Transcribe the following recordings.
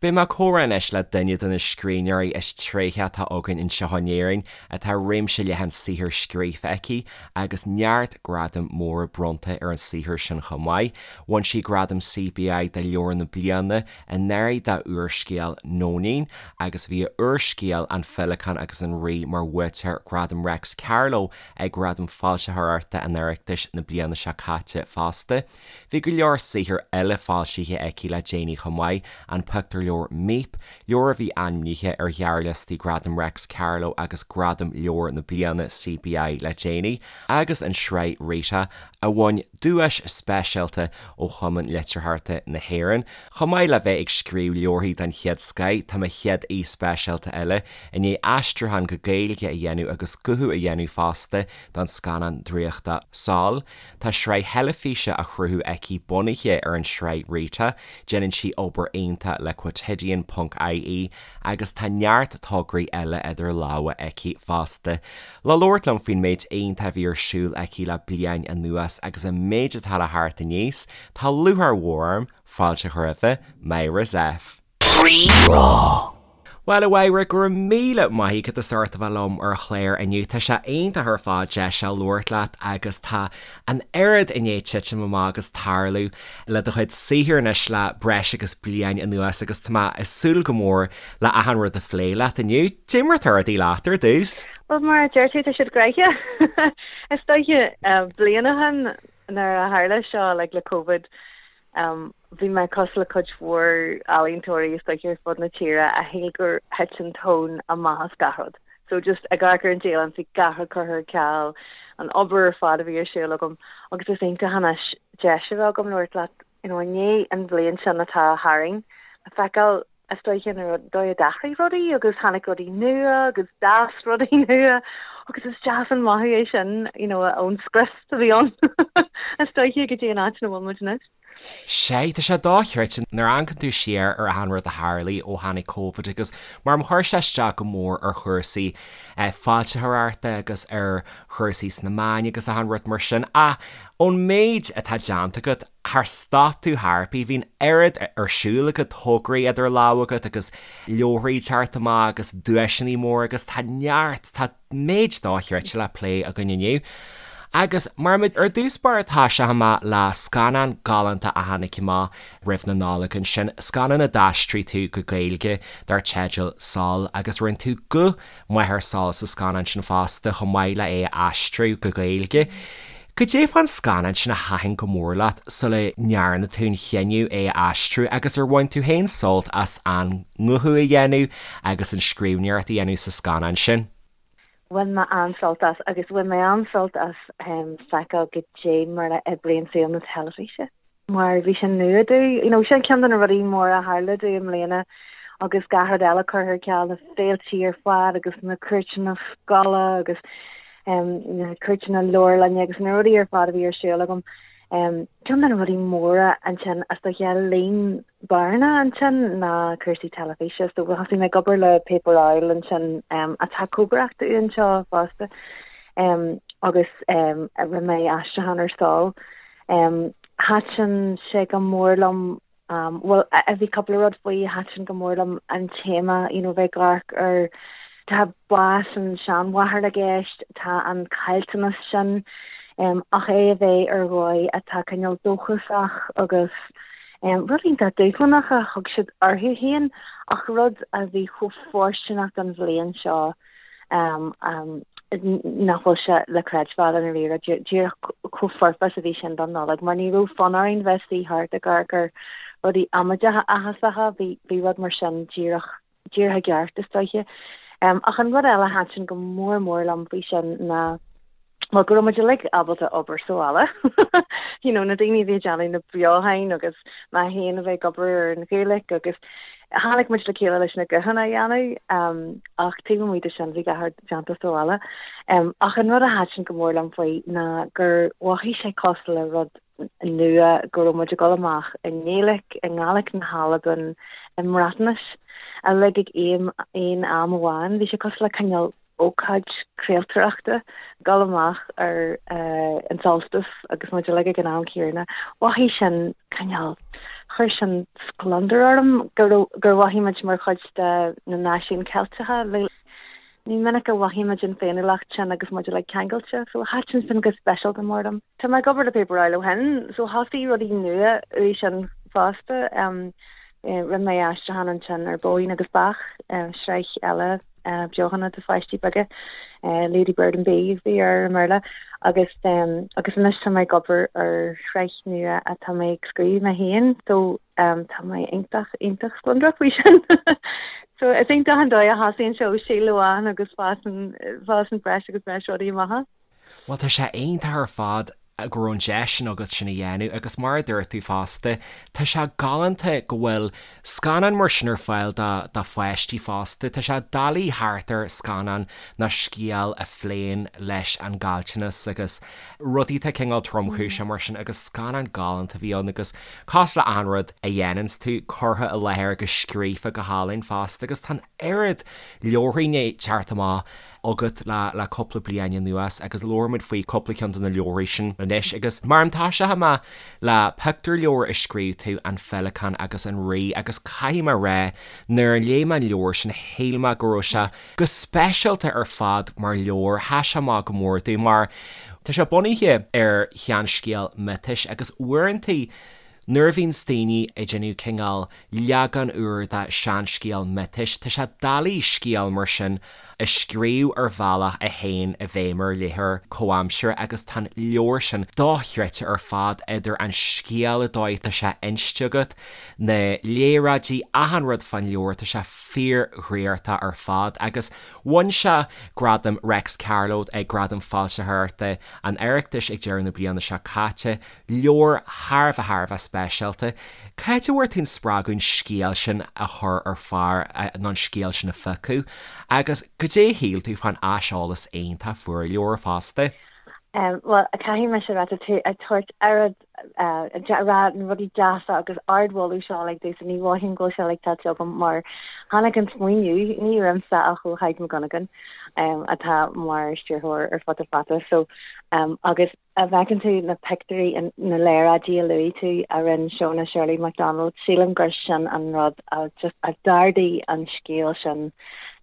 Beidh mé ag comhrá anois le duine de na scríbhneoirí is tréithe atá againn anseo in Éirinn, atá réimse leathan saothar scríofa aici agus neart gradaim móra bronnta ar an saothar sin chomh maith. Bhain sí gradam CBI do Leabhar na Bliana anuraidh dá úrscéal Nóinín agus bhí a úrscéal An Féileacán agus an Rí mar bhuaiteoir Ghradam Réics Carló ag Gradaim Foilsitheoireachta an Oireachtais na bliana seo caite fosta. Bhí go leor saothar eile foilsithe aici le déanaí chomh maith, an pictiúrleabhar Míp, leabhar a bhí ainmnithe ar ghearrliostaí Gradam Réics Carló agus Gradam Leabhar na Bliana CBI le déanaí, agus an tsraith Rita, a bhain duais speisialta ó Chumann Litearthachta na hÉireann. Chomh maith le bheith ag scríobh leabharthaí den chéad scoith, tá mo chéad aoi speisialta eile i ndiaidh aistriúchán go Gaeilge a dhéanamh agus guthú a dhéanamh fosta don scannán draíochta Sol. Tá sraith theilifíse á chruthú aici bunaithe ar an tsraith Rita, déanann sí obair iontach le Quotidian ponc ie agus tá neart tograí eile idir lámha aici fosta. Le labhairt liom faoin méid iontach a bhí ar siúl aici le bliain anuas agus an méid atá le theacht aníos, tá lúcháir mhór orm fáilte a chur roimh Myra Zepf. Rí-Rá. Bhuel, a Mháire, go raibh míle maith agat as ucht a bheith liom ar an chlár inniu. Tá sé iontach ar fad deis seo labhairt leat agus tá an oiread i ndiaidh titim amach agus tarlú le do chuid saothair anois le breis agus bliain anuas agus tá mé ag súil go mór le achan rud a phlé leat inniu. Cad é mar atá rudaí leat ar dtús? Bhuel, mar a deir tú, tá siad gnoitheach. Is dóiche, bliain ó shin nuair a tharla seo, like, le Covid, Bhí mé cosúil le cuid mhór ealaíontóirí is dóiche ar fud na tíre a shíl gur thit an tóin amach as gach rud. So just ag amharc ar an dialann bhí gach rud curtha ar ceal, an obair ar fad a bhí ar siúl agam agus is iontach anois deis a bheith agam labhairt leat you know i ndiaidh an bhliain sin atá tharainn le feiceáil Is dóiche an dóigh a d'athraigh rudaí agus tháinig rudaí nua agus d'fhás rudaí nua agus is deas an mothú é sin, you know, ón scrios a bhí ann is dóiche go dtí an áit ina bhfuil muid anois. Sea, tá sé dochreidte nuair a amharcann tú siar ar achan rud a tharlaigh ó tháinig Covid agus mar chuir sé isteach go mór ar chúrsaí foilsitheoireachta agus ar chúrsaí sna meáin agus achan rud mar sin ach ón méid atá déanta agat Char stop tú chor ar bith, bhí an oiread ar siúl agat, tograí idir lámha agat agus leabharthaí ag teacht amach agus duaiseanna móra agus tá neart, tá méid dochreidte le plé againn inniu. Agus mar muid ar dtús báire tosóidh mé le scannán galánta a tháinig amach roimh na Nollag ansin, scannán a d'aistrigh tú go Gaeilge dar teideal Sol agus rinne tú guth máthair Sol sa scannán sin fosta, chomh maith le é a aistriú go Gaeilge. Goidé fán scannán sin a thaitin go mór leat sula ndearna tú an chinneadh é a aistriú agus ar bhain tú féin sult as an nguthú a dhéanamh agus an scríbhneoireacht a dhéanamh sa scannán sin? Bhain mé an-sult as agus bhain mé an-sult as feiceáil goidé mar a oibríonn saol na teilifíse. mar bhí sé nua domh. You know, sin ceann de na rudaí móra a tharla domh i mbliana agus gach rud eile curtha ar ceal, na féiltí ar fad agus na cuairteanna scoile agus um, na cuairteanna leabharlainne agus na rudaí ar fad a bhí ar siúl agam. Um, ceann de na rudaí móra ansin is dóiche a líon bearna ansin ná cúrsaí teilifíse. So thosaigh mé ag obair le Paper Owl ansin um, atá cóngarach dúinn anseo fosta um, agus um, rinne mé aistriúchán ar Sol. Thaitin sé go mór liom, bhuel, bhí cúpla rud faoi a thaitin go mór liom, an téama, you know, bheith ag amharc ar, tá bás an seanmháthar i gceist, tá an caillteanas sin, ach é a bheith ar dhóigh atá cineál dóchasach agus rud iontach dúshlánach a thug siad orthu féin ach rud a bhí chomh fóirsteanach don bhliain seo. nach bhfuil sé le creidbheáil i ndáiríre, díreach chomh foirfe is a bhí sin don Nollaig, mar ní raibh fonn orainn bheith suí thart ag amharc ar rudaí amaideacha áthasacha, bhí bhí rud mar sin díreach díreach i gceart, is dóiche. Ach an rud eile a thaitin go mór mór liom faoi sin ná, bhuel, go raibh muid uilig ábalta obair sa bhaile, you know, na daoine a bhí ag déanamh na beochain agus mé féin a bheith ag obair ar an Ghaeilge agus tháinig muid le chéile leis na guthanna a dhéanamh ach taobh amuigh de sin bhí gach rud déanta sa bhaile. Ach an rud a thaitin go mór liom faoi ná gur mhothaigh sé cosúil le rud nua go raibh muid ag dul amach i nGaeilge, i nGàidhlig na hAlban, i mBreatnais, uilig ag aon am amháin. Bhí sé cosúil le cineál. ócáid craoltóireachta, dul amach ar an solstice agus muid uilig ag an am céanna, mhothaigh sin cineál, chuir sin scleondar orm go raibh, gur mhothaigh muid mar chuid de na náisiúin Ceilteacha. Ní minic a mhothaíonn muid an féiniúlacht sin agus muid uilig ceangailte, so thaitin sin go speisialta mór liom. Tá mé ag obair le Paper Owl ó shin, so thosaigh rudaí nua uaidh sin fosta. Rinne mé aistriúchán ansin ar Bóín agus Beach, sraith eile beochana do pháistí beaga, Lady Bird and Bee a bhí air i mBéarla, agus agus anois tá mé ag obair ar shraith nua atá mé ag scríobh mé féin, so tá mé iontach, iontach spleodrach faoi sin. So is iontach an dóigh a thosaíonn sé ó shíol amháin agus fásann, fásann breis agus breis rudaí amach as. Bhuel tá sé iontach ar fad go raibh an deis sin agat sin a dhéanamh agus mar a dúirt tú fosta, tá sé galánta go bhfuil scannán mar sin ar fáil do do pháistí fosta. Tá sé doiligh theacht ar scannán nó scéal a phléann leis an gcaillteanas agus rudaí atá cineál tromchúiseach mar sin agus scannán galánta a bhí ann agus cosúil le achan rud a dhéananns tú, curtha i láthair agus scríofa go hálainn fosta agus tá an oiread leabharthaí i ndiaidh teacht amach agat le cúpla bliain anuas agus labhróimid faoi cúpla ceann de na leabharthaí sin anois agus mar a tosóidh mé le pictiúrleabhar a scríobh tú, An Féileacán agus an Rí agus caithfidh mé a rá nuair a léigh mé an leabhar sin shíl mé go raibh sé go speisialta ar fad mar leabhar, sheas sé amach go mór domh mar tá sé bunaithe ar sheanscéal miotais agus uaireantaí Nuair a bhíonns daoine ag déanamh cineál leagan úr de seanscéal miotais, tá sé doiligh scéal mar sin a scríobh ar bhealach a théann i bhfeidhm ar léitheoir comhaimseartha agus tá an leabhar sin dochreidte ar fad, idir an scéal, an dóigh atá sé inste agat, na léaráidí, achan rud fán leabhar, tá sé fíordhraíochtach ar fad agus bhain sé gradam Réics Carló ag Gradaim Foilsitheoireachta an Oireachtais ag deireadh na bliana seo caite. Leabhar thar a bheith thar a bheith speisialta. Cá háit a bhfuair tú an spreagadh an scéal sin a chur ar phár nó an scéal sin a phiocadh agus goidé a shíl tú fán aiseolas iontach a fuair an leabhar fosta? Bhuel, caithfidh mise a rá, tá tú ag tabhairt oiread, ag rá na rudaí deasa agus ardmholadh seo uilig domhsa, ní mhothaím go bhfuil sé uilig tuillte agam mar tháinig an smaoineamh, ní uaimse ach ó Thadhg Mac Dhonnagáin atá mar stiúrthóir ar Futa Fata so agus Dá bhfeiceann tú na pictiúirí, na léaráidí a luaigh tú a rinne Shona Shirley McDonald, sílim gur sin an rud a just a d'ardaigh an scéal sin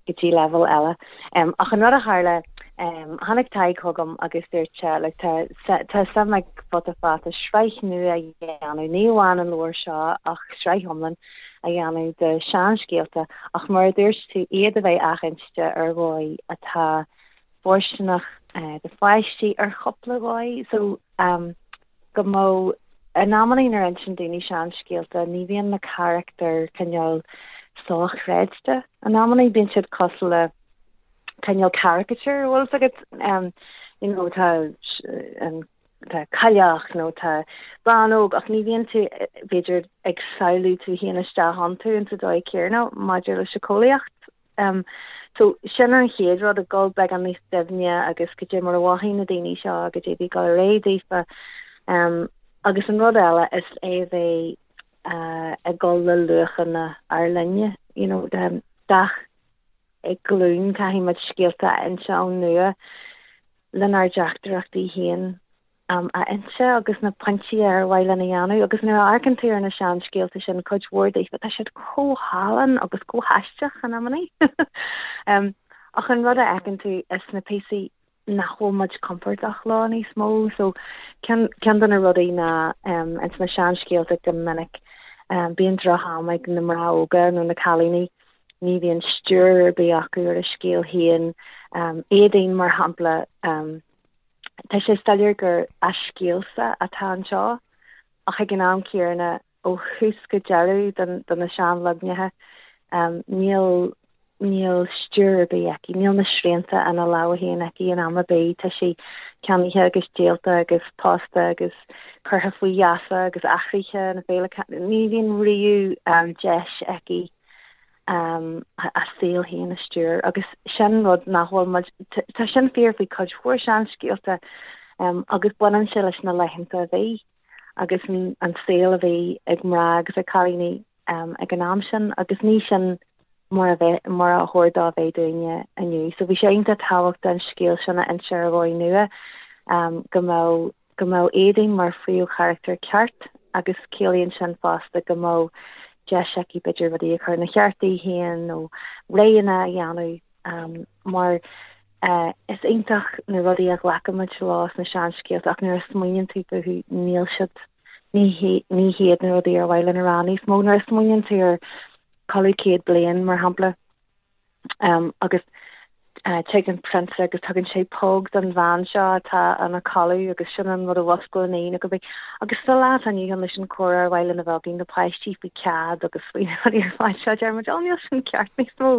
go dtí leibhéal eile. Ach an rud a tharla, tháinig Tadhg chugam agus dúirt sé, look, tá tá suim ag Futa Fata sraith nua a dhéanamh, ní amháin an leabhar seo ach sraith iomlán a dhéanamh de seanscéalta ach mar a dúirt tú, iad a bheith athinste ar dhóigh atá fóirsteanach do pháistí ar chúpla dhóigh so go mbeadh in amannaí nuair a insíonn daoine seanscéalta ní bhíonn na carachtair cineál sochreidte in amannaí bíonn siad cosúil le cineál caricature bhfuil fhios agat you know tá an tá cailleach nó tá bean óg ach ní bhíonn tú b'fhéidir ag samhlú tú féin isteach iontu insa dóigh céanna maidir le síceolaíocht So, sin an chéad rud, ag dul beagán níos doimhne agus goidé mar a mhothaigh na daoine seo, goidé a bhí ag dul ar aghaidh daofa. Agus an rud eile is é a bheith ag dul le luachanna ár linne, you know, gach glúin caithfidh muid scéalta a inse ón nua lenár dteachtaireachtaí féin. a inse agus na pointí ar mhaith linn a dhéanamh agus nuair a amharcann tú ar na seanscéalta sin, cuid mhór daofa, tá siad chomh hálainn agus chomh haisteach in amannaí. Ach an rud a fheiceann tú is na píosaí nach bhfuil muid compordach leo níos mó. So ceann, ceann de na rudaí ná ins na seanscéalta go minic bíonn droch-am ag na mná óga nó na cailíní, ní bhíonn stiúir ar bith acu ar a scéal féin. Éadaoin mar shampla, Tá sé soiléir gur a scéalsa atá anseo, ach ag an am céanna, ó thús go deireadh de na seanleaganacha, níl níl stiúir ar bith aici, níl na srianta ina lámha féin aici in am ar bith, tá sí ceannaithe agus díolta agus pósta agus curtha faoi gheasa agus athraithe na féile, ní bhíonn riamh deis aici a saol féin a stiúir agus sin rud nach bhfuil muid, tá sin fíor faoi cuid mhór seanscéalta agus baineann sé leis na laethanta a bhí agus an saol a bhí ag mná agus ag cailíní ag an am sin agus ní sin. Mar a bheith, mar a chóir dó a bheith dúinne inniu. So bhí sé iontach tábhachtach an scéal sin a inse ar dhóigh nua, go mbeadh, go mbeadh Éadaoin mar phríomhcharachtar ceart agus ciallaíonn sin fosta go mbeadh deis aici b'fhéidir rudaí a chur ina cheart di féin nó roghanna a dhéanamh mar is iontach na rudaí a ghlacaimid leo sna seanscéalta ach nuair a smaoiníonn tú fúthu níl siad, ní, ní hiad na rudaí ar mhaith linn a rá níos mó. Nuair a smaoiníonn tú ar Codladh 100 Bliain, mar shampla, agus tig an prionsa agus tugann sé póg don bhean seo atá ina codladh agus sin an rud a mhusclaíonn í nó cibé. Agus sa lá atá inniu ann leis an chomhrá ar mhaith linn a bheith againn le páistí faoi cead agus faoi na rudaí ar fad seo, deir muid, 'Ó, níl sin ceart níos mó,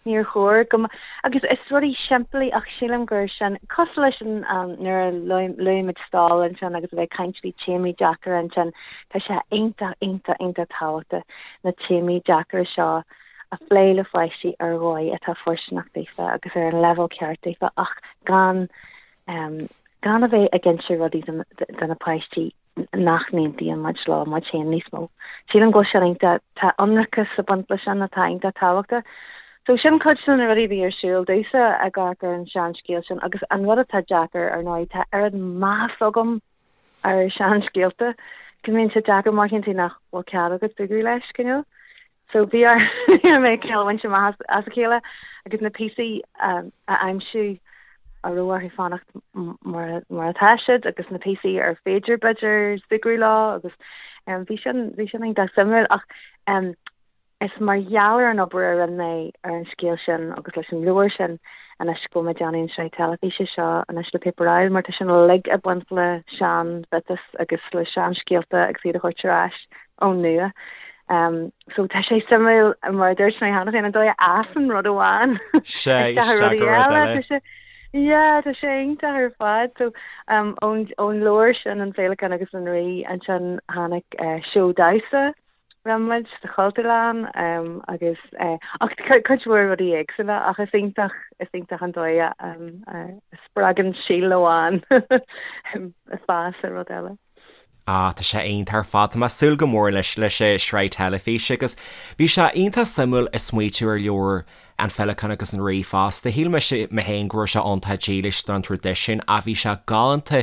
níor chóir go mb-. Agus is rudaí simplí ach sílim gur sin, cosúil leis an nuair a luaigh muid stól ansin agus a bheith ag caint faoi téamaí deacra ansin, tá sé iontach, iontach, iontach tábhachtach. na téamaí deacra seo a phlé le pháistí ar dhóigh atá fóirsteanach daofa agus ar an leibhéal ceart daofa ach gan gan a bheith ag inse rudaí do na páistí nach n-aontaíonn muid leo muid féin níos mó. Sílim go bhfuil sin iontach, tá ionracas ag baint leis sin atá iontach tábhachtach. So sin cuid de na rudaí a bhí ar siúl domhsa ag amharc ar an seanscéal sin agus an rud atá deacair ar ndóigh tá oiread meas agam ar seanscéalta, go mbíonn sé deacair má tchíonn tú nach bhfuil cead agat súgradh leis, cineál. So bhí orm mé cineál a bhaint amach as a chéile agus na píosaí a aimsiú a raibh orthu fanacht mar mar atá siad agus na píosaí ar féidir b'fhéidir súgradh leo agus bhí sin bhí sin iontach suimiúil ach Is mar gheall ar an obair a rinne mé ar an scéal sin agus leis an leabhar sin anois go bhfuil mé ag déanamh an sraith teilifíse seo anois le Paper Owl mar tá sin uilig ag baint le sean-mhiotais agus le seanscéalta agus iad a thabhairt ar ais ón nua. So tá sé suimiúil mar a dúirt mé cheana féin an dóigh a fhásann rud amháin isteach i rudaí eile. Tá sé Yeah, tá sé iontach ar fad. So um, ón, ón leabhar sin an Féileacán agus an Rí ansin tháinig uh, seó damhsa Rinne muid sa Chultúrlann agus ach cuid mhór rudaí éagsúla ach is iontach is iontach an dóigh a spreagann síol amháin fás i rud eile. Ah, tá sé iontach ar fad. Tá mé ag súil go mór leis leis an sraith teilifíse agus bhí sé iontach suimiúil ag smaoitiú ar leabhar An Féileacán agus an Rí fosta. Shíl mise mé féin go raibh sé iontach dílis don traidisiún ach bhí sé galánta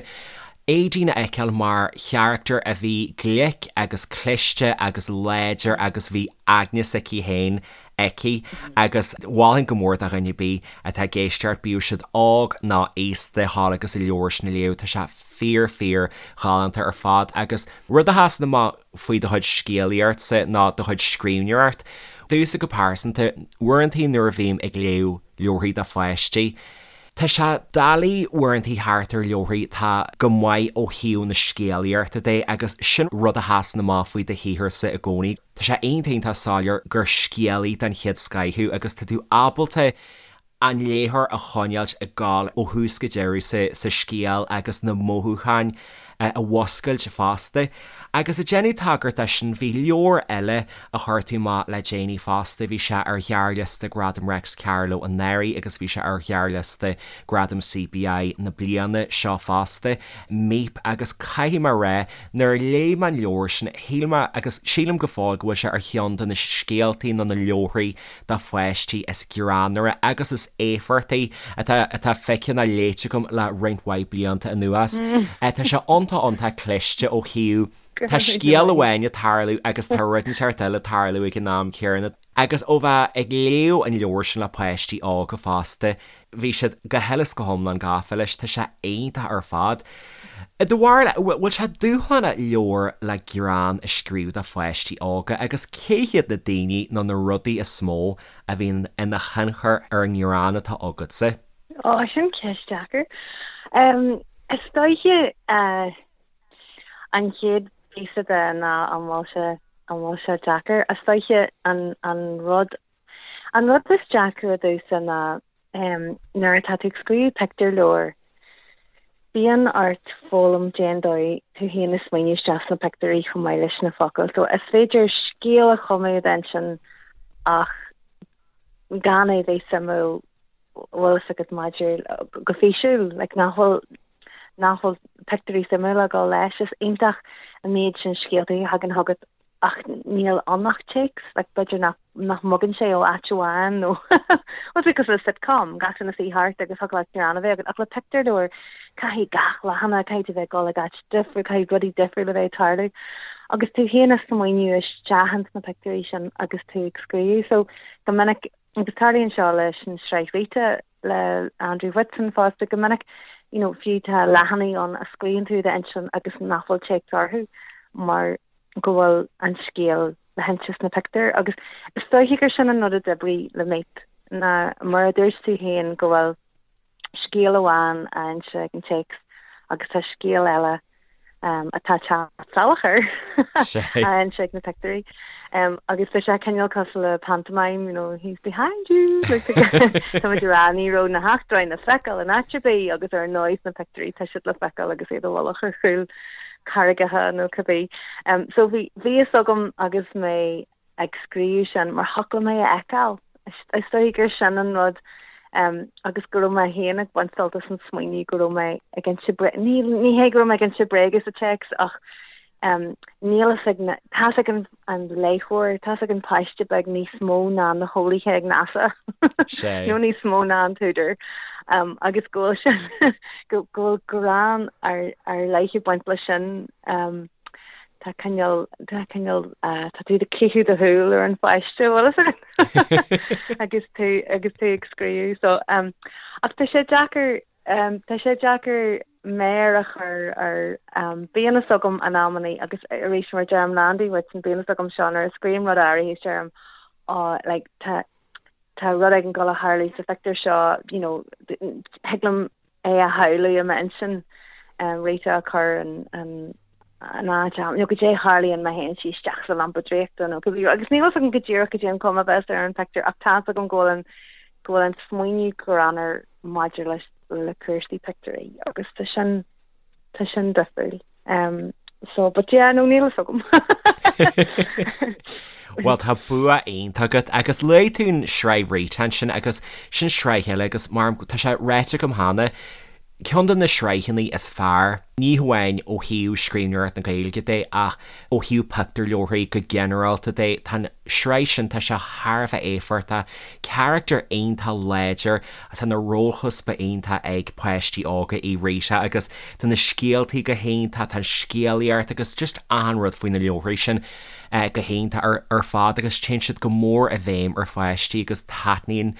Éadaoin a fheiceáil mar charachtar a bhí glic agus cliste agus láidir agus bhí aigne s'aici féin aici agus mholfainn go mór do dhuine ar bith atá ag éisteacht, bíodh siad óg nó aosta, dhul agus an leabhar sin a léamh. Tá sé fíor fíor ghalánta ar fad agus rud a sheasann amach faoi do chuid scéalaíochtsa nó do chuid scríbhneoireacht. Domhsa go pearsanta, uaireantaí nuair a bhím ag léamh leabharthaí do pháistí, tá sé doiligh uaireantaí theacht ar leabharthaí atá go maith ó thaobh na scéalaíochta de agus sin rud a sheasann amach faoi do shaotharsa i gcónaí. Tá sé iontach iontach soiléir gur scéalaí den chéad scoith thú agus tá tú ábalta an léitheoir a choinneáilt ag gabháil ó thús go deireadh sa scéal agus na mothúcháin a mhuscailt fosta. Agus ag déanamh tagairt dó sin, bhí leabhar eile a chuir tú amach le déanaí fosta, bhí sé ar ghearrliosta Gradam Réics Carló anuraidh agus bhí sé ar ghearrliosta Gradam CBI na bliana seo fosta, Míp, agus caithfidh mé a rá, nuair a léigh mé an leabhar sin, shíl mé, agus sílim go fóill, go bhfuil sé ar cheann de na scéaltaí nó na leabharthaí do pháistí is greannmhaire agus is éifeachtaí atá atá feicthe nó léite agam le roinnt mhaith blianta anuas. Tá sé iontach iontach cliste ó thaobh tá scéal amháin ag tarlú agus tá rud inteacht eile ag tarlú ag an am céanna. Agus ó bheith ag léamh an leabhair sin le páistí óga fosta, Bhí siad go huile is go hiomlán gafa leis, tá sé iontach ar fad. I do bharúil, bhfuil sé dúshlánach leabhar le greann a scríobh do pháistí óga agus cé hiad na daoine nó na rudaí is mó a bhíonn ina thionchar ar an ngreann atá agatsa? Ó, sin ceist deacair. Is dóiche an chéad phíosa de ná an bhfuil sé, an bhfuil sé deacair. Is dóiche an, an rud An rud is deacra domhsa ná nuair atá tú ag scríobh pictiúrleabhar, bíonn ort foghlaim cén dóigh tú féin a smaoineamh isteach sna pictiúirí chomh maith leis na focail. So is féidir scéal a chumadh i d'intinn ach gan é bheith suimiúil, bhfuil fhios agat maidir go físiúil, like nach bhfuil nach bhfuil pictiúirí suimiúla ag dul leis. Is iontach an méid sin scéalta a thagann chugat. Ach níl ann ach téacs, like b'fhéidir nach nach mbogann sé ó áit amháin nó bhuel it's cosúil le sitcom, gach duine suí thart agus thiocfadh leat greann a bheith agat ach le pictiúrleabhar caithfidh gach leathanach, caithfidh tú bheith ag dul ag áit difriúil, caithfidh rudaí difriúla bheith ag tarlú agus tú féin ag smaoineamh isteach ins na pictiúirí sin agus tú ag scríobh. So go minic, agus tarlaíonn seo leis an sraith Rita le Andrew Whitson fosta, go minic you know fiú tá leathanaigh ann a scríobhann tú i d'intinn agus nach bhfuil téacs orthu mar go bhfuil an scéal le hinse sna pictiúir agus is dóiche gur sin an rud a d'oibrigh le Míp ná mar a dúirt tú féin go bhfuil scéal amháin á inse ag an téacs agus tá scéal eile atá ag teacht salach air á inse ag na pictiúirí. Agus tá sé cineál cosúil le pantomime, you know, he's behind you! Like, tá muid ag rá ní raibh na heachtráin le feiceáil in áit ar bith agus ar ndóigh sna pictiúirí tá siad le feiceáil agus iad i bhfolach ar chúl carraigeacha nó cibé. So bhí bhí fhios agam agus mé ag scríobh sin mar thiocfadh liom é a fheiceáil. Is dóigh gur sin an rud agus go raibh mé féin ag baint sult as an smaoineamh go raibh mé ag inse bréige, ní ní hé go raibh mé ag inse bréige sa téacs ach níl fhios ag na, tá fhios ag an an léitheoir, tá fhios ag an páiste beag níos mó ná na heolaithe ag NASA nó níos mó ná an t-údar agus go bhfuil sin go bhfuil greann ar ar leith ag baint leis sin. Tá cineál, tá cineál, tá tú ag caitheamh do shúil ar an pháiste, bhfuil fhios agat? agus tú, agus tú ag scríobh. So, ach tá sé deacair, tá sé deacair méar a chur ar, bíonn fhios agam in amannaí agus arís mar a deirim le Andy Whitson, bíonn fhios agam seo nuair a scríobhaim rud áirithe is deirim, oh, like, tá, tá rud éigin ag dul a tharlú sa phictiúr seo, you know, thig liom é a shamhlú i m'intinn, Rita ag cur an an áit ann, nó goidé a tharlaíonn má théann sí isteach sa lampa draíochta nó cibé agus níl fhios agam go díreach goidé an chuma a bheas ar an phictiúr ach tá's agam go bhfuil an go bhfuil an smaoineamh greannmhar maidir leis le cúrsaí pictiúirí agus tá sin tá sin difriúil. Um, so, but yeah, no, níl fhios agam. Bhuel tá bua iontach agat agus luaigh tú an sraith Rita ansin agus sin sraith eile agus mar tá sé ráite agam cheana, ceann de na sraitheanna is fearr, ní hamháin ó thaobh scríbhneoireacht na Gaeilge de ach ó thaobh pictiúrleabharthaí go ginearálta de, tá an sraith sin, tá sé thar a bheith éifeachtach, carachtar iontach láidir, tá na rólchuspa iontach ag páistí óga í Rita agus tá na scéaltaí go hiontach, tá an scéalaíocht agus just achan rud faoi na leabharthaí sin go hiontach ar ar fad agus téann siad go mór i bhfeidhm ar pháistí agus taitníonn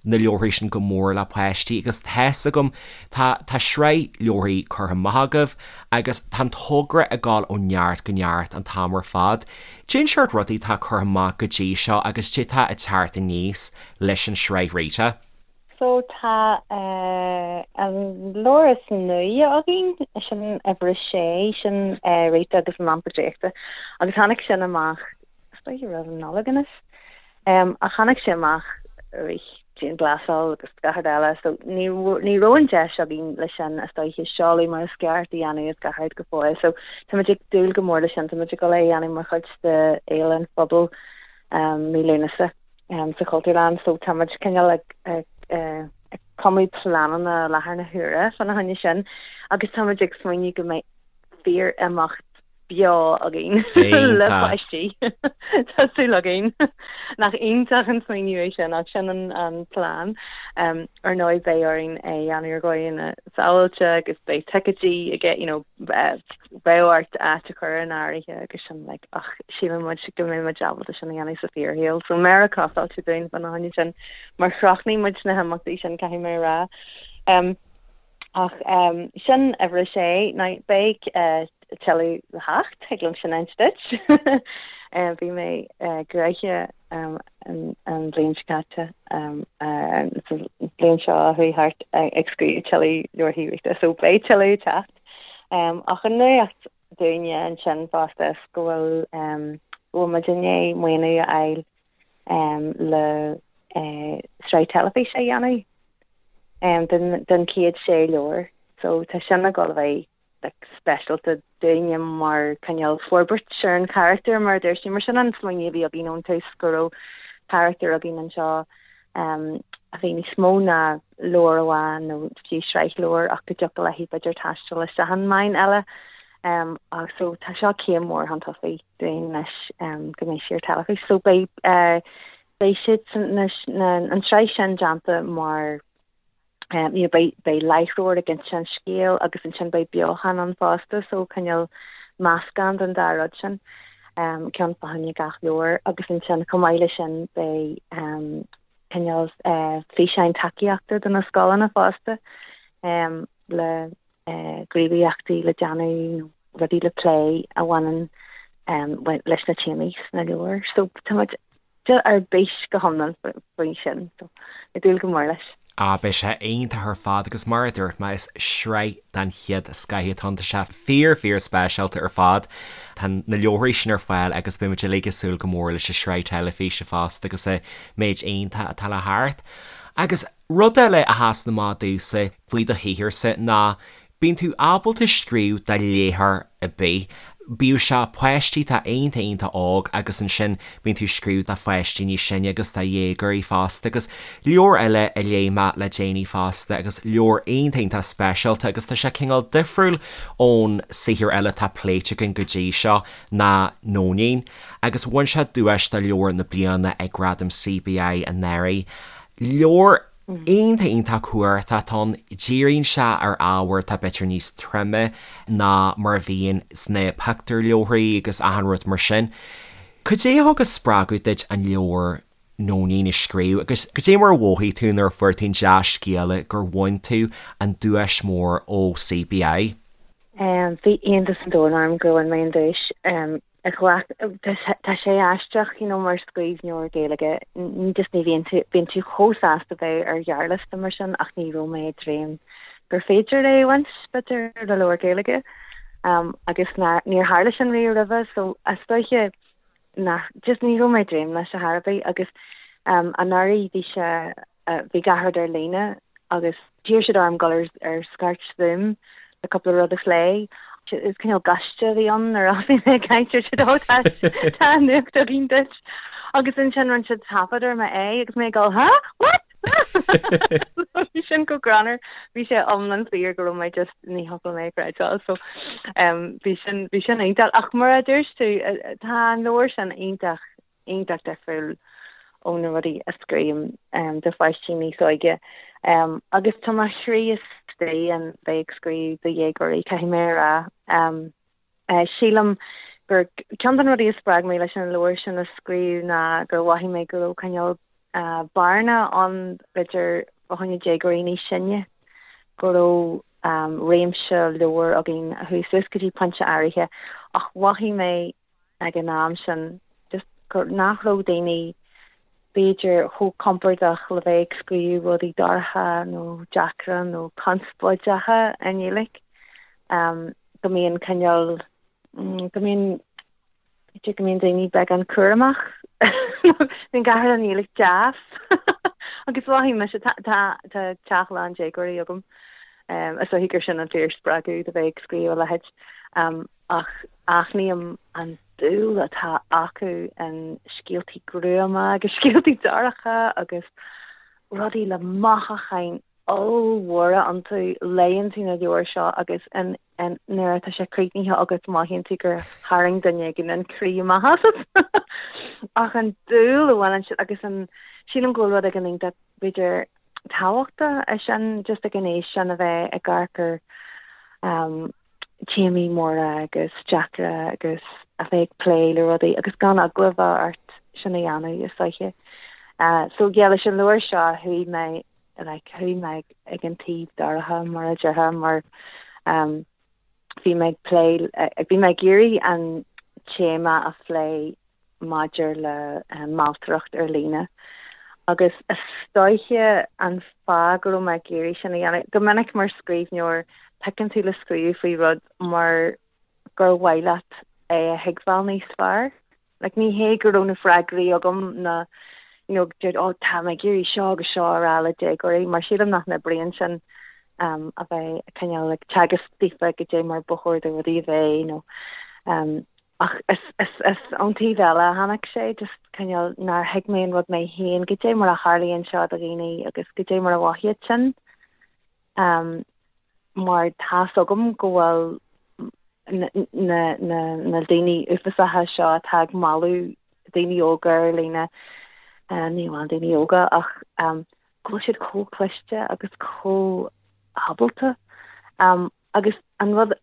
na leabharthaí sin go mór le páistí agus tá's agam tá tá sraith leabharthaí curtha amach agaibh agus tá an togra ag dul ó neart go neart an t-am ar fad. Cén seort rudaí atá curtha amach go dtí seo agus cad é atá ag teacht aníos leis an sraith Rita? So tá an leabhar is nuaí againn, sin uimhir a sé, sin Rita agus an Lampa Draíochta agus tháinig sin amach, is dóiche roimh an Nollaig anois, ach tháinig sé amach i rith dianghlasáil agus gach rud eile so ní ní raibh an deis againn leis sin is dóiche seoladh mar is ceart a dhéanamh is gach rud go fóill so táimid ag dúil go mór leis sin, táimid ag dul é a dhéanamh mar chuid de Fhéile an Phobail mí Lúnasa. sa Chultúrlann so tá muid cineál ag ag cumadh pleananna i láthair na huaire fána choinne sin agus tá muid ag smaoineamh go mbeidh fíor-imeacht beo againn le páistí. Tá súil againn. Nach iontach an smaoineamh é sin ach sin an an plean. Ar ndóigh beidh orainn é a dhéanamh ar dhóigheanna sábháilte agus beidh ticéidí aige you know beidh ort áit a chur in áirithe agus sin like ach síleann muid go mbeidh muid ábalta sin a dhéanamh sa fíorshaol. So méara costáilte dúinn fána choinne sin mar chrochnaigh muid na himeachtaí sin caithfidh mé a rá. Um, ach um, sin uimhir a sé, now beidh uh, tuilleadh le theacht, thig liom sin a inse duit. uh, bhí mé uh, gnoitheach um, an, an bhliain seo caite um, uh, sa bhliain seo a chuaigh thart uh, ag scríobh tuilleadh leabharthaí Rita, so beidh tuilleadh ag teacht. Ach an nuacht dúinne ansin fosta is go bhfuil go bhfuil muid i ndiaidh maoiniú a fháil le sraith teilifíse a dhéanamh den chéad sé leabhar. So tá sin ag dul a bheith like speisialta dúinne mar cineál forbairt ar an charachtar mar a dúirt tú. Mar sin an smaoineamh a bhí againn ón tús go raibh carachtar againn anseo a bhí níos mó ná leabhar amháin nó fiú sraith leabhar ach go dtiocfadh léi b'fhéidir taisteal isteach i ndomhan eile. So tá seo céim mhór chun tosaigh dúinn anois go mbeidh sí ar teilifís. So beidh beidh siad an tsraith sin déanta mar you know beidh beidh láithreoir ag inse an scéil agus ansin beidh beochan ann fosta so cineál meascán den dá rud sin. Ceann fá choinne gach leabhar agus ansin chomh maith leis sin beidh cineál físeáin tacaíochta do na scoileanna fosta le gníomhaíochtaí le déanamh nó rudaí le plé a bhaineann leis na téamaí sna leabhair. So tá muid ar bís go hiomlán faoi sin. So ag dúil go mór leis. Ah, beidh sé iontach ar fad agus mar a dúirt mé, is sraith den chéad scoth atá ann. Tá sé fíor, fíor speisialta ar fad. Tá na leabharthaí sin ar fáil agus beidh muid uilig ag súil go mór leis an sraith teilifíse fosta agus an méid iontach atá le theacht. Agus rud eile a sheasann amach domhsa faoi do shaotharsa ná Bíonn tú ábalta scríobh do léitheoir ar bith, bíodh sé páistí atá iontach iontach óg agus ansin bíonn tú ag scríobh do pháistí níos sine agus do dhéagóirí fosta agus leabhar eile a léigh mé le déanaí fosta agus leabhar iontach iontach speisialta agus tá sé cineál difriúil ón saothar eile atá pléite againn go dtí seo ná Nóinín agus bhain sé duais do leabhar na bliana ag Gradaim CBI anuraidh. Leabhar iontach iontach cumhachtach atá ann. Díríonn sé ar ábhar atá b'fhéidir níos troime ná mar a bhíonn sna pictiúrleabharthaí agus achan rud mar sin. Cad é a thug an spreagadh duit an leabhar Nóinín a scríobh agus cad é mar a mhothaigh tú nuair a fuair tú an dea-scéala gur bhain tú an duais mhór ó CBI? Bhí iontas an domhain orm gur bhain mé an duais. Ghlac, tá sé aisteach, you know, mar scríbhneoir Gaeilge, ní just ní bhíonn tú, bíonn tú chomh sásta bheith ar ghearrliosta mar sin ach ní raibh mé ag dréim gur féidir é a bhaint, b'fhéidir, le leabhar Gaeilge. Um, agus ná, níor tharla sin riamh roimhe, so is dóiche nach, just ní raibh mé ag dréim leis ar chor ar bith agus um, anuraidh bhí sé, Bhí gach rud ar líne agus d'iarr siad orm dul ar scairt Zoom le cúpla rud a phlé. Is cineál gaiste a bhí ann nuair a thosaigh mé ag caint dúirt siad ó tá tá nuacht againn duit. Agus ansin rinne siad taifead ar m'aghaidh agus mé ag dul huh? What? Bhí sin go greannmhar. Bhí sé iomlán fíor go raibh mé just ní thiocfadh liom é a chreidbheáil so bhí sin bhí sin iontach. Ach mar a dúirt tú tá an leabhar sin iontach iontach difriúil ó na rudaí a scríobhaim do pháistí níos óige. Agus tá mo chroí istigh in bheith ag scríobh do dhéagóirí, caithfidh mé a rá. Sílim gur ceann de na rudaí a spreag mé leis an leabhar sin a scríobh ná gur mhothaigh mé go raibh cineál bearna ann b'fhéidir fá choinne déagóirí níos sine, go raibh réimse leabhar againn a chuaigh suas go dtí pointe áirithe ach mhothaigh mé ag an am sin just gur nach raibh daoine b'fhéidir chomh compordach le bheith ag scríobh rudaí dorcha nó deacra nó conspóideacha i nGaeilge. Go mbíonn cineál, go mbíonn, b'fhéidir go mbíonn daoine beagán cúramach bíonn gach rud i nGaeilge deas agus mhothaigh mise, tá, tá, tá teach lán déagóirí agam is dóichí gur sin an fíorspreagadh do bheith ag scríobh a leithéid. Ach aithním an dúil atá acu in scéaltaí gruama agus scéaltaí dorcha agus rudaí le mothúcháin ollmhóra iontu. Léann tú na leabhair seo agus nuair atá sé críochnaithe agat mothaíonn tú gur tharraing duine éigin an croí amach asat. Ach an dúil a bhaineann siad agus an, sílim go bhfuil rud éigin iontach b'fhéidir tábhachtach é sin just ag an aois sin a bheith ag amharc ar téamaí móra agus deacra agus a bheith ag plé le rudaí agus gan eagla a bheith ort sin a dhéanamh is dóiche. So yeah leis an leabhar seo chuaigh mé like chuaigh mé ag an taobh dorcha mar a déarfá mar um, bhí mé ag plé bhí mé ag iarraidh an téama a phlé maidir le mealltaireacht ar líne agus is dóiche an fáth go raibh mé ag iarraidh sin a dhéanamh, go minic mar scríbhneoir piocann tú le scríobh faoi rud mar gur mhaith leat é a thuigbheáil níos fearr. Like ní hé go raibh na freagraí agam na you know deir oh tá mé ag iarraidh seo agus seo a rá le déagóirí mar sílim nach n-oibríonn sin um, a bheith cineál ag teagasc daofa goidé mar ba chóir do rudaí a bheith nó um, Ach is ón taobh eile a tháinig sé, just cineál nár thuig mé an rud mé féin, goidé mar a tharlaíonn seo do dhaoine agus goidé mar a mhothaíonn sin. Mar tá's agam go bhfuil, Na na daoine uafásacha seo atá ag mealladh daoine óga ar líne, ní amháin daoine óga ach go bhfuil siad chomh cliste agus chomh ábalta. Agus an rud,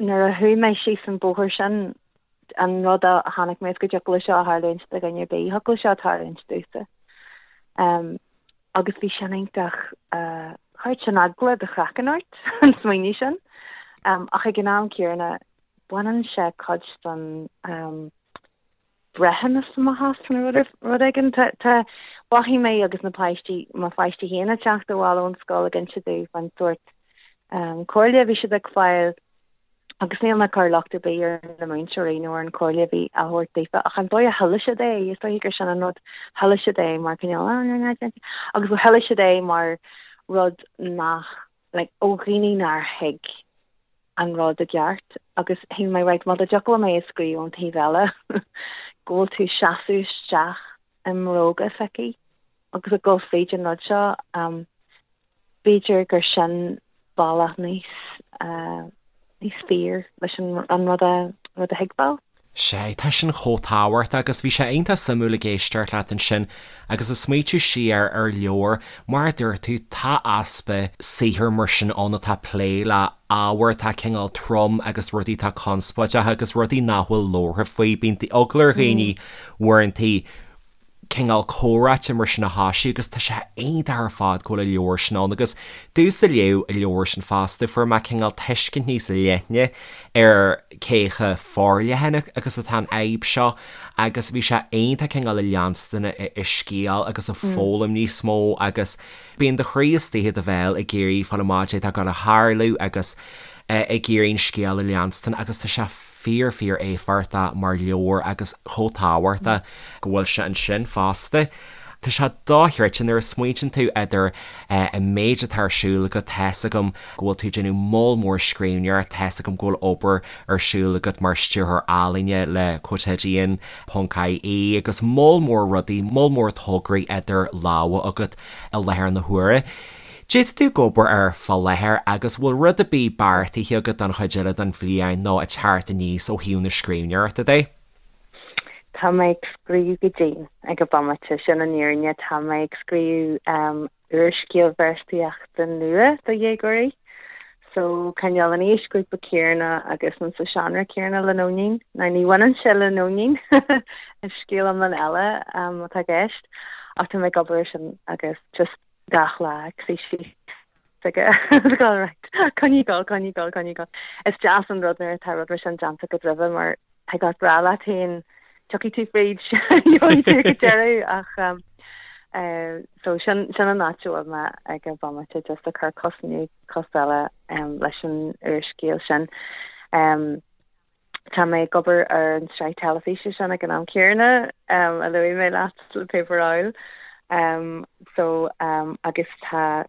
nuair a chuaigh mé síos an bóthar sin, an rud a chonaic mé is go dtiocfadh leis seo a tharlúint do dhuine ar bith, thiocfadh leis seo tarlúint domhsa. Agus bhí sin iontach, chuir sin eagla do chraiceann ort, an smaoineamh sin. Ach ag an am céanna, baineann sé cuid den breithiúnas amach as nó rud éigin. Tá, mhothaigh mé agus na páistí, mo pháistí féin ag teacht abhaile ón scoil ag inse domh faoin sórt comhairle a bhí siad ag fáil agus níl mé ag cur locht ar bith ar na múinteoirí nó ar an chomhairle a bhí á thabhairt daofa ach an dóigh a chuala siad é, is dóiche gur sin an rud, chuala siad é mar cineál agus chuala siad é mar rud nach, like, ó dhaoine nár thuig an rud i gceart agus shíl mé, right, má dá dtiocfadh liom é a scríobh ón taobh eile, go bhfuil tú ag seasamh isteach i mbróga s'aici agus ag dul fríd an rud seo, um, b'fhéidir gur sin bealach níos, uh, níos fíor leis an, an rud a, rud a thuigbheáil. Sea, tá sin chomh tábhachtach agus bhí sé iontach suimiúil ag éisteacht leat ansin agus ag smaoitiú siar ar leabhar, mar a dúirt tú, tá easpa saothar mar sin ann atá ag plé le ábhar atá cineál trom agus rudaí atá conspóideach agus rudaí nach bhfuil labhartha faoi. Bíonn eagla ar dhaoine uaireanta cineál comhráite mar sin a thoisiú agus tá sé iontach ar fad go bhfuil an leabhar sin ann agus domhsa a léigh an leabhar sin fosta fuair mé cineál tuiscint níos leithne ar cé chomh forleathan agus atá an fhadhb seo agus bhí sé iontach cineál ag leanstan an scéal agus ag foghlaim níos mó agus bíonn do chroí istigh i do bhéal ag iarraidh fáil amach caidé atá ag gabháil a tharlú agus ag iarraidh an scéal a leanstan agus tá sé fíor fíor éifeachtach mar leabhar agus chomh tábhachtach go bhfuil sé ansin fosta. Tá sé dochreidte nuair a smaointíonn tú idir an méid atá ar siúl agat, tá's agam go bhfuil tú ag déanamh moll mór scríbhneoireacht, tá's agam go bhfuil obair ar siúl agat mar stiúrthóir ealaíne le Quotidian ponc ie agus moll mór rudaí, moll mór tograí idir lámha agat i láthair na huaire. Caidé atá tú ag obair air fá láthair agus bhfuil rud ar bith beartaithe agat don chuid eile den bhliain nó ag teacht aníos ó thaobh na scríbhneoireachta de? Tá mé ag scríobh go dian ag an bomaite, sin an fhírinne. Tá mé ag scríobh úrscéal véarsaíochta nua do dhéagóirí. So, cineál an aoisghrúpa céanna agus an sa seánra céanna le Nóinín. Now ní bhaineann sé le Nóinín, is scéal iomlán eile atá i gceist, ach tá mé ag obair air sin agus just gach lá ag suí síos aige agus ag right coinnigh ag dul, coinnigh ag dul, coinnigh ag dul. Is deas an rud nuair atá rud mar sin déanta agat roimhe mar thig leat rá leat féin tiocfaidh tú fríd, gheobhaidh tú go deireadh ach um, uh, so sin, sin an áit a bhfuil mé ag an bhomaite just ag cur cos i ndiaidh cos eile um, leis an úrscéal sin. Um, Tá mé ag obair ar an tsraith teilifíse sin ag an am céanna, a luaigh mé leat le Paper Owl. So, agus tá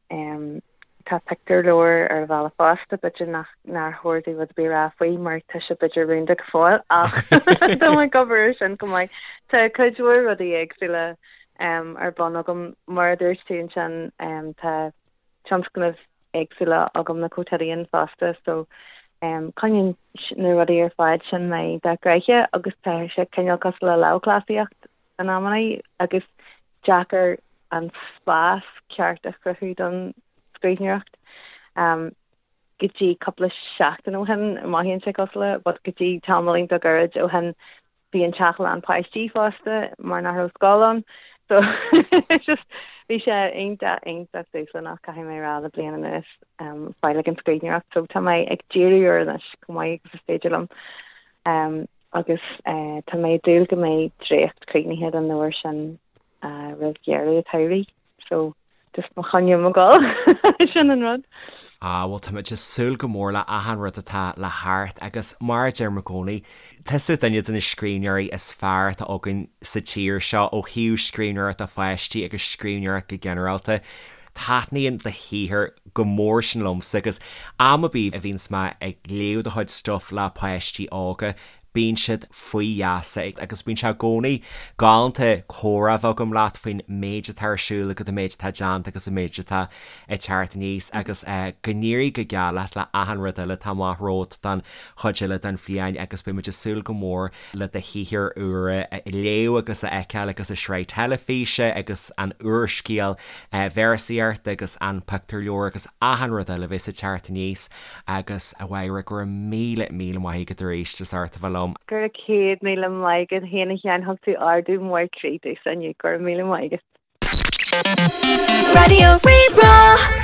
tá pictiúrleabhar ar an bhealach fosta, b'fhéidir nach nár chóir domh rud ar bith a rá faoi mar tá sé b'fhéidir rúnda go fóill ach tá mé ag obair ar sin chomh maith. Tá cuid mhór rudaí éagsúla ar bun agam. Mar a dúirt tú ansin, tá tionscnaimh éagsúla agam le Quotidian fosta so coinníonn na rudaí ar fad sin mé iontach gnoitheach agus tá sé cineál cosúil le lámhchleasaíocht in amannaí agus deacair an spás ceart a chruthú don scríbhneoireacht. Go dtí cúpla seachtain ó shin, mothaíonn sé cosúil le, but go dtí tamaillín beag gairid ó shin Bhí an teach lán páistí fosta mar nach raibh scoil ann so just bhí sé iontach iontach dúshlánach caithfidh mé a rá le bliain anuas fáil ag an scríbhneoireacht so tá mé ag díriú air anois chomh maith agus is féidir liom agus tá mé ag dúil go mbeidh dréacht críochnaithe den leabhar sin roimh dheireadh an tsamhraidh so just mo choinne mo dhul sin an rud. Ah bhuel táimid ag súil go mór le achan rud atá le theacht agus mar a deirim i gcónaí, tusa duine de na scríbhneoirí is fearr atá againn sa tír seo ó thaobh scríbhneoireacht do pháistí agus scríbhneoireacht go ginearálta. Taitníonn do shaothar go mór sin liomsa agus am ar bith a bhíonns mé ag léamh do chuid stuif le páistí óga. Bíonn siad faoi gheasa agus bíonn sé i gcónaí galánta comhrá a bheith agam leat faoin méid atá ar siúl agat, an méid atá déanta agus an méid atá ag teacht aníos agus go n-éirí go geal leat le achan rud eile atá amach romhat don chuid eile den bhliain agus beidh muid ag súil go mór le do shaothar úr a léamh agus a fheiceáil agus an sraith teilifíse agus an úrscéal véarsaíochta agus an pictiúrleabhar agus achan rud eile a bheas ag teacht aníos agus a Mháire, go raibh míle, míle maith agat arís as ucht a bheith liom. Go raibh 100,000 maith agat féin a Sheáin, thug tú ardú mór croí domhsa inniu, go raibh míle maith agat. Raidió Rí-Rá.